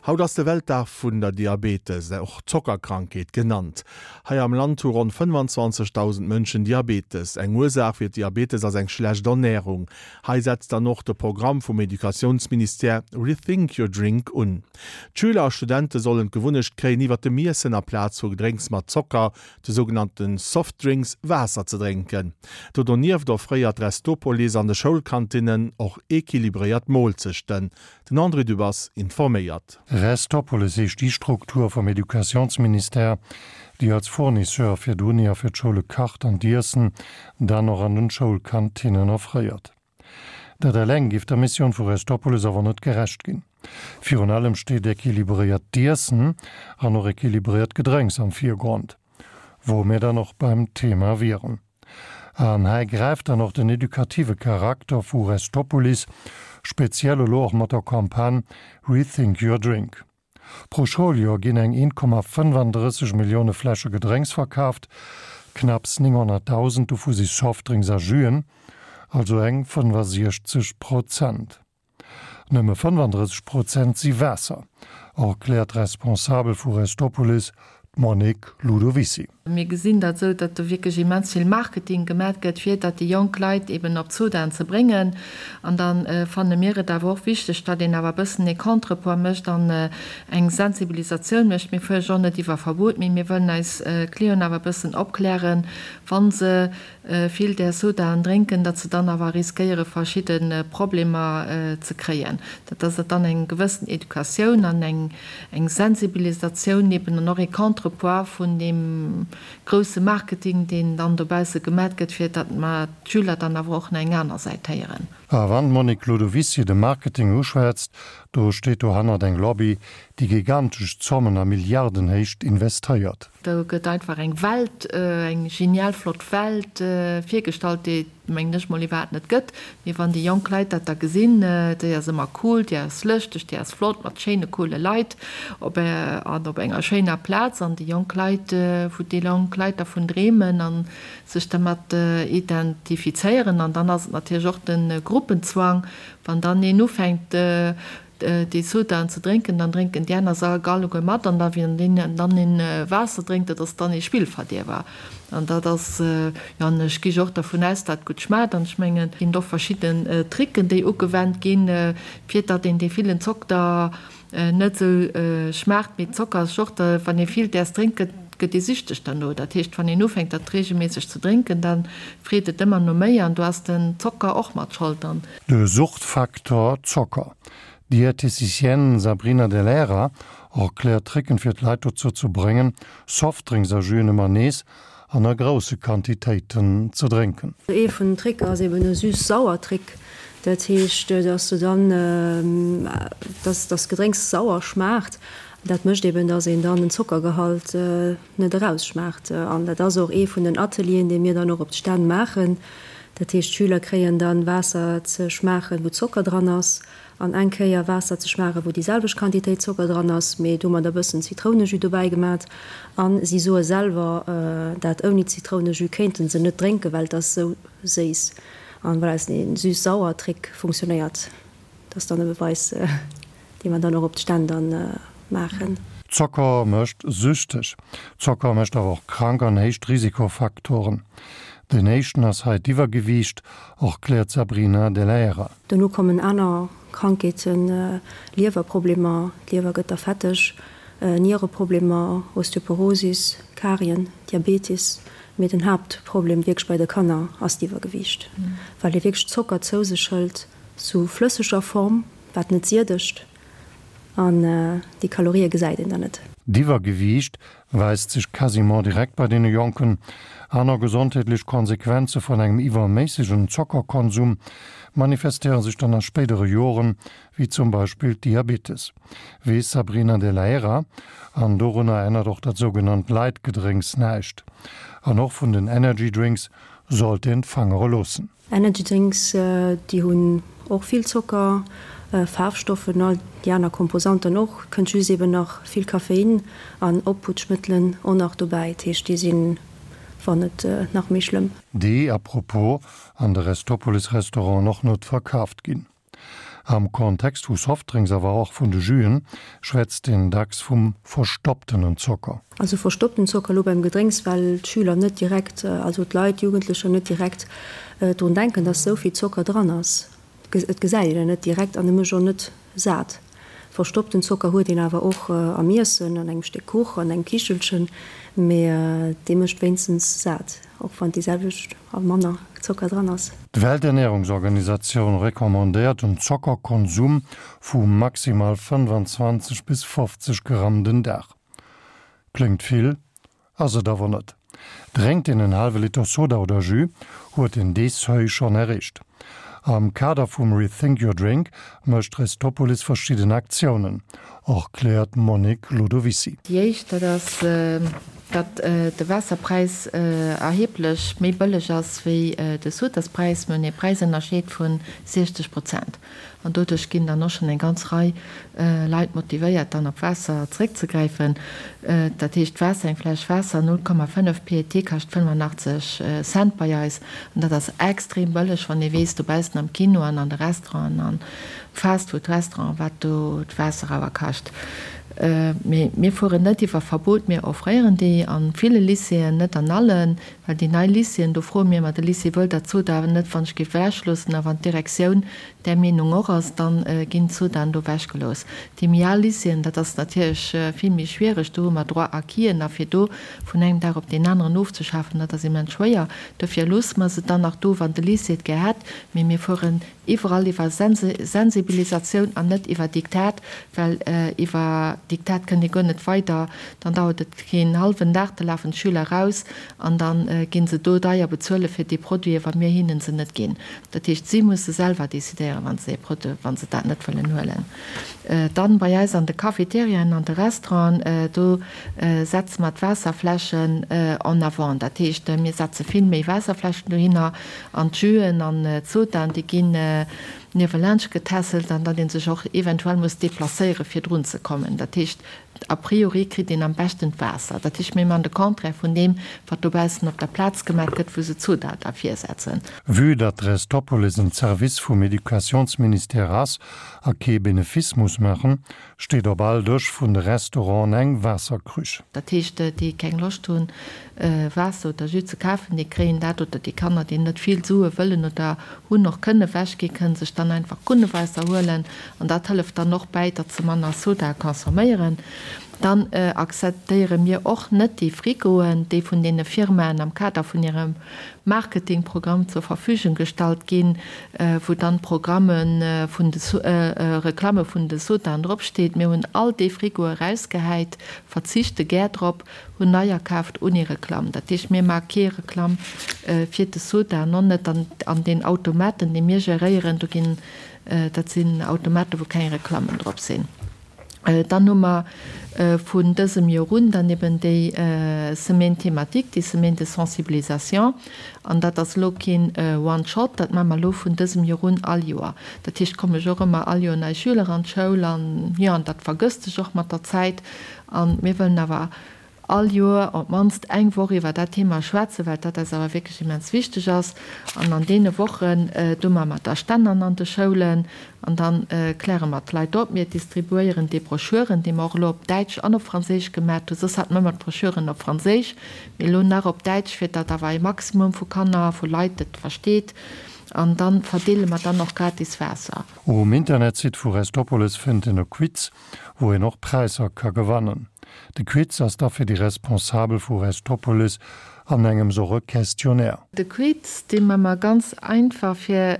Haut ass de Weltdag vun der Diabetes, och Zockerkrankheet genannt. Hei am Land hu ronn 25.000 Mënschen Diabetes. Eng Ursaach fir d'Diabetes ass eng schlecht Ernärung. Hei setzt dann och de Programm vum Educatiounsministère Rethink your drink un. D'Schüler a Studente sollen d'Gewunnecht kréien, iwwer dem Iessen aplaz vu Gedrénks mat Zocker, de sougenannte Softdrinks, Waasser ze drénken. Do donieft offréiert Restopolis an de Schoulkantinnen och equilibréiert Moolzechten. Den André Dübbers informéiert. Restopolis heescht déi Struktur vum Educatiounsministère, déi als Fournisseur fir d'Uni a fir d'Schoule kacht an d'Iessen dann och an den Schoulkantinnen offréiert. Dat eleng géif der Missioun vu Restopolis awer net gerecht ginn. Virun allem steet equilibréiert Iessen an och equilibréiert Gedrénks am Virgrond, wou mir dann och beim Thema wieren. An hei gräift dann och den edukative Charakter vu Restopolis, speziell elo och mat der Campagne Rethink your drink. Pro Schouljoer ginn eng 1,35 Millioune Fläsche Gedrénks verkaaft, knapps 900.000 dovu si Softdrinks a Juen, also eng 65 Prozent. Nëmme 35 Prozent si Waasser, erkläert d'Responsabel vu Restopolis, d'Monique Ludovicy. Mir gesinn dat esou, datt do wierklech immens vill Marketing gemat gëtt, fir datt déi jonk Leit eben op d'Sodaen ze bréngen. An da fanne mir et awer och wichteg, datt een awer e bëssen ee Contrepoids mécht an eng Sensibilisatioun mécht. Mir fuerge och net iwwer Verbot, mee mir wëllen eis Clienten awer e bëssen opklären, wa se vill där Sodaen drénken, datt se dann awer riskéiere verschidde Problemer ze kréien. Dat ass dann eng gewëssen Educatioun an eng eng Sensibilisatioun eben an och ee Contrepoids vun deem grousse Marketing, deen dann dobausse gemat gëtt, fir datt mer d'Schüler dann awer och nach eng aner Säit héieren. A wann d'Monique Ludovicy de Marketing uschwätzt, do steet dohannert eng Lobby, déi gigantesch Zommen a Milliardenhéicht investéiert. Do gëtt einfach eng Welt, eng genial flott Welt virgestallt, déi et, mengen ech mol, iwwerhaapt net gëtt. Mee wann déi jonk Leit dat da gesinn, déi ass ëmmer cool, déi ass lëschteg, déi ass flott, mat schéine coole Leit op an op enger schéiner Plaz, an déi jonk Leit, wou déi jonk Leit dervun dreemen a sech dermat identifizéieren. An dann ass et natierlech och de Gruppenzwang, wann dann een ufänkt, déi Sodaen ze drénken, dann drénken déi aner se alleguer mat an da wien dann een Waasser drénkt, dat ass dann ee Spillverdierwer. An dat ass, jo, an ech gi jo och dervun aus, dat gutt schmaacht an ech mengen, et ginn och verschidden Tricken, déi ugewennt ginn, fir datt een dee villen Zocker net esou schmaacht. Mee Zocker ass jo och, wann ee vill däers drénkt, gëtt gëtt ee süchteg derno. Dat heescht, wann een ufänkt, dat reegelméisseg ze drénken, da freet et ëmmer no méi an do ass den Zocker och mat Schold. An. De Suchtfaktor Zocker. D'Diététicienne Sabrina Dell'Era erkläert Tricken fir d'Leit dozou ze bréngen, Softdrinks a Juen ëmmer nees an a grousse Quantitéiten ze drénken. Ee vun den Tricker ass eben e süß-sauer Trick. Dat heescht, dass du dann, dass das Gedrénks sauer schmaacht. Dat mécht eben, dass een dann den Zockergehalt net erausschmaacht. An dat ass och ee vun den Atelieren, déi mir dann och op d'Stänn maachen. Dat heescht, d'Schüler kréien dann Waasser ze schmaachen, wou Zocker dran ass, an eng Kéier Waasser ze schmaachen, wou déi selwecht Quantitéit Zocker dran ass, mee domadder e bëssen Zitrounejus dobäi gemat. A si soe selwer, dat ouni Zitrounejus kéinte se net drénken, well et ass esou séiss. An voilà, dee süß-sauer-Trick funktionéiert. Dat ass dann e Beweis. Déi mer dann och op d'Stänn dann maachen. Zocker mécht süchteg. Zocker mécht awer och krank an héicht Risikofaktoren. Den éischten ass hei d'Iwwergewiicht, erkläert d'Sabrina Dell'Aera. Dono kommen aner Krankheeten, Liewerproblemer, d'Liewer gëtt da fetteg, Niereproblemer, Osteoporosis, Karien, Diabetes. Mee den Haaptproblem wierklech bei de Kanner ass d'Iwwergewiicht, well ee wierklech Zocker zou sech hëlt, sou flësseger Form. Wat net siedegt, an déi Kalorië gesäit een dann net. D'Iwwergewiicht weist sech quasiment direkt bei deene Jonken. Aner gesondheetlech Konsequenze vun engem iwwerméissegen Zockerkonsum manifestéiere sech dann a spéidere Joren, wéi zum Beispill d'Diabetes, weess Sabrina Dell'Aera. An dorunner ännert och dat sougenannt Light-Gedrénks näischt. An och vun den Energy Drinks sollt een d'Fangere loossen. Energy Drinks, déi hunn och vill Zocker, Faarfstoffen, all déi aner Komposanten och. Kënnt just eben nach vill Koffein an Opputschmëttelen och nach dobäi. Dat heescht, déi sinn, wann net nach méi schlëmm. Déi, à propos, an de Restopolis-Restauranten och net verkaaft ginn. Am Kontext vu Softdrinks, awer och vun de Juen, schwätzt een dacks vum verstopptenen Zocker. Also verstoppten Zocker elo beim Gedrénks, well d'Schüler net direkt, also d'Leit, d'Jugendlecher net direkt drun denken, dass esou vill Zocker dran ass. Et gesäit een en net direkt an e mécht och net sat. Verstoppten Zocker huet een awer och am Iessen, an engem Stéck Kuch, an engem Kichelchen, mee dee mécht wéinstens sat, och wann déi selwecht a manner Zocker dran ass. D'Welternährungsorganisatioun recommandéiert en Zockerkonsum vu maximal 25 bis 50 Gramm den Dag. Kléngt vill, Ass et awer net. Drénkt een en haalwe Liter Soda oder Jus, huet een dee Seuil schonn erreecht. Am Kader vum Rethink Your Drink mécht Restopolis verschidden Aktiounen, erkläert d'Monique Lodovici. Déi éischt, dat ass, datt de Waasserpräis erheblech méi bëlleg ass wéi de Sodaspräis. Mir hunn ee Präisënnerscheed vu 60 Prozent. An doduerch ginn dann och schonn eng ganz Rei Leit motivéiert, dann op Waasser zeréckzegräifen. Dat heescht, Waasser, eng Fläsch Waasser, 0,5 PET kascht 85 Cent bei eis. An dat ass extrem bëlleg, wann ee weess, dobaussen am Kino an an de Restauranten an Fastfood-Restauranten, wat do d'Waasser awer kascht. Mee mir fueren net iwwer Verbot, mir offréieren déi a ville Lycéeën, net an allen. Well déi nei Lycéeën, do froe mir ëmmer de Lycée, wëllt Der d'Sodaen net wann ech géif ewechloossen? A wann d'Direktioun där Meenung och ass, da ginn d'Sodaen do ewechgelooss. Déi méi al Lycéeën, dat ass natierlech vill méi schwiereg, do hu mer Droit-acquisen a fir do vun engem Dag op deen aneren ofzeschafen, dat ass immens schwéier. Dofir loosse mer se dann nach do, wann de Lycée et gär hätt. Mee mir fueren Iwwerall iwwer Sensibilisatioun an net iwwer Diktat, well iwwer Diktat kënnt ee guer net weider. Dann dauert et keen hallwen Dag, da lafen d'Schüler raus an da gi se do deier bezuele fir déi Produiten, wa mir hinnen se net ginn. Dat heescht, si musse selwer decidéieren, wa se ee Produit, wa se dat net wëllen huelen. Dann bei eis an de Cafeteriaen, an de Restauranten, do setze mer d'Waasserfläschen en avant. Dat heescht, mir setze vill méi Waasserfläschen dohinner An d'Juen an d'Sodaen, déi ginn niewelaanscht getässelt an datt ee sech och eventuell muss deplacéiere fir drun ze kommen. Dat heescht, a priori kritt een am beschten d'Waasser. Dat heescht, mir man de Contraire vun deem, wat dobaussen op der Plaz gemaach gëtt, wou se d'Soda da virsetzen. Vue datt Restopolis en Service vum Educationsministère ass a kee Benefice muss maachen, steet op all Dësch vun de Restauranten eng Waasserkrüch. Dat heescht, déi keng Loscht hunn, Waasser oder Jus ze kafen, déi kréien dat, oder déi Kanner, déi net vill Sue wëllen oder hunn, och kënne ewechginn, kënne sech dann einfach Krunnewaasser huelen. An dat hëlleft dann och bäi, datt se manner Soda consomméieren. Dann akzeptéiere mir och net déi Frigoen, déi vun deene Firmaen am Kader vun hirem Marketingprogramm zur Verfügung gestallt ginn, wou dann d'Programme vun de Reklamme vun de Sodaen drop steet. Mir hunn all déi Frigoe rausgehäit, verzichte gär drop, hunn neier kaaft ouni Reklamm. Dat heescht, mir maache kee Reklamm fir de Soda an och net an den Automaten, déi mir geréieren. Do ginn, dat sinn Automaten, wou keng Reklammen drop sinn. Dann hu mer vun dësem Joer un dann eben déi Semaine thématique, déi Semaine de sensibilisation. An dat ass elo keen One-shot, dat maache mer elo vun dësem Joer un all Joer. Dat heescht, komme jo och ëmmer all Joer nei Schüler an d'Schoul an, jo, an dat vergësst sech och mat der Zäit. A mir wëllen awer all Joer op d'mannst eng Woch iwwer dat Thema schwätzen, well dat eis awer wierklech immens wichteg ass. An an deene Wochen, do maache mer da Stännern an de Schoulen an da kläre mer d'Leit op. Mir distribuéieren déi Broschüren, déi mer och elo op Däitsch an op Franséisch gemat hunn. Soss hate mer ëmmer d'Broschüren op Franséisch, mee elo nach op Däitsch, fir datt awer e Maximum vu Kanner, vu Leit et versteet. An da verdeele mer dann och gratis Waasser. Um Internetsite vu Restopolis fënnt een e Quiz, wou een och Präisser ka gewannen. De Quiz ass da fir déi Responsabel vu Restopolis an engems och e Questionnaire. De Quiz, dee man mer ganz einfach fir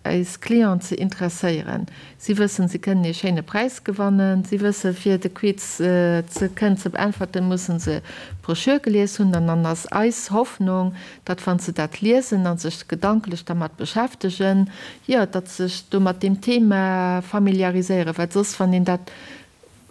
eis Clienten ze interesséieren. Si wëssen, si kënnen ee schéine Präis gewannen. Si wëssen, fir de Quiz ze kënnen ze beäntwerten, mussen se d'Brochure gelies hunn. An dann ass eis Hoffnung, datt wann se dat liesen a sech gedanklech dermat beschäftegen, jo, datt se sech do mat deem Thema familiariséieren, well soss, wann een dat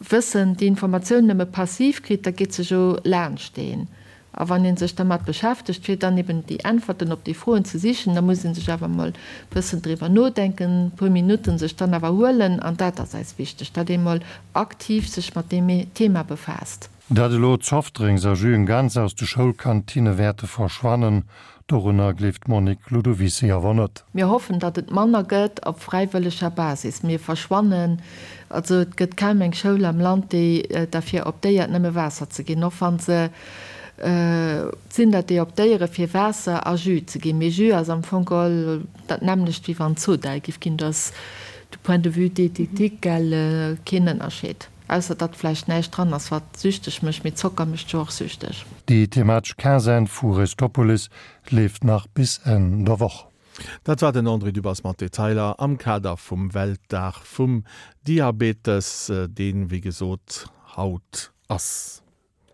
Wëssen, déi Informatioun nëmme passiv kritt, da geet se jo laanscht een. A wann ee sech dermat beschäftegt, fir dann eben déi Äntwerten op déi Froen ze sichen, da muss ee sech awer emol e bëssen driwwer nodenken, e puer Minutten sech dann awer huelen. An dat ass eis wichteg, datt ee mol aktiv sech mat deem Thema befaasst. Datt elo d'Softdrinks a Juen ganz aus de Schoulkantinne wäerte verschwannen, Dorunner gleeft d'Monique Ludovisi awer net. Mir hoffen, datt et manner gëtt op fräiwëlleger Basis. Mir verschwannen, also et gëtt kaum eng Schoul am Land, déi derfir optéiert, nëmme Waasser ze ginn, och wa se, et sinn der, déi optéiere fir Waasser a Jus ze ginn. Mee Jus ass am Fong geholl dat nämmlecht, wéi wann Soda giff ginn. Do ass du point de vue diététique, gell, keen Ënnerscheed. Ausser datt vläicht näischt dran ass wat süchteg mécht, mee Zocker mécht jo och süchteg. Déi thematesch Quinzaine vu Restopolis leeft nach bis Enn der Woch. Dat war den André Dübbers mat Detailer am Kader vum Weltdag vum Diabetes, deen, wéi gesot, haut ass.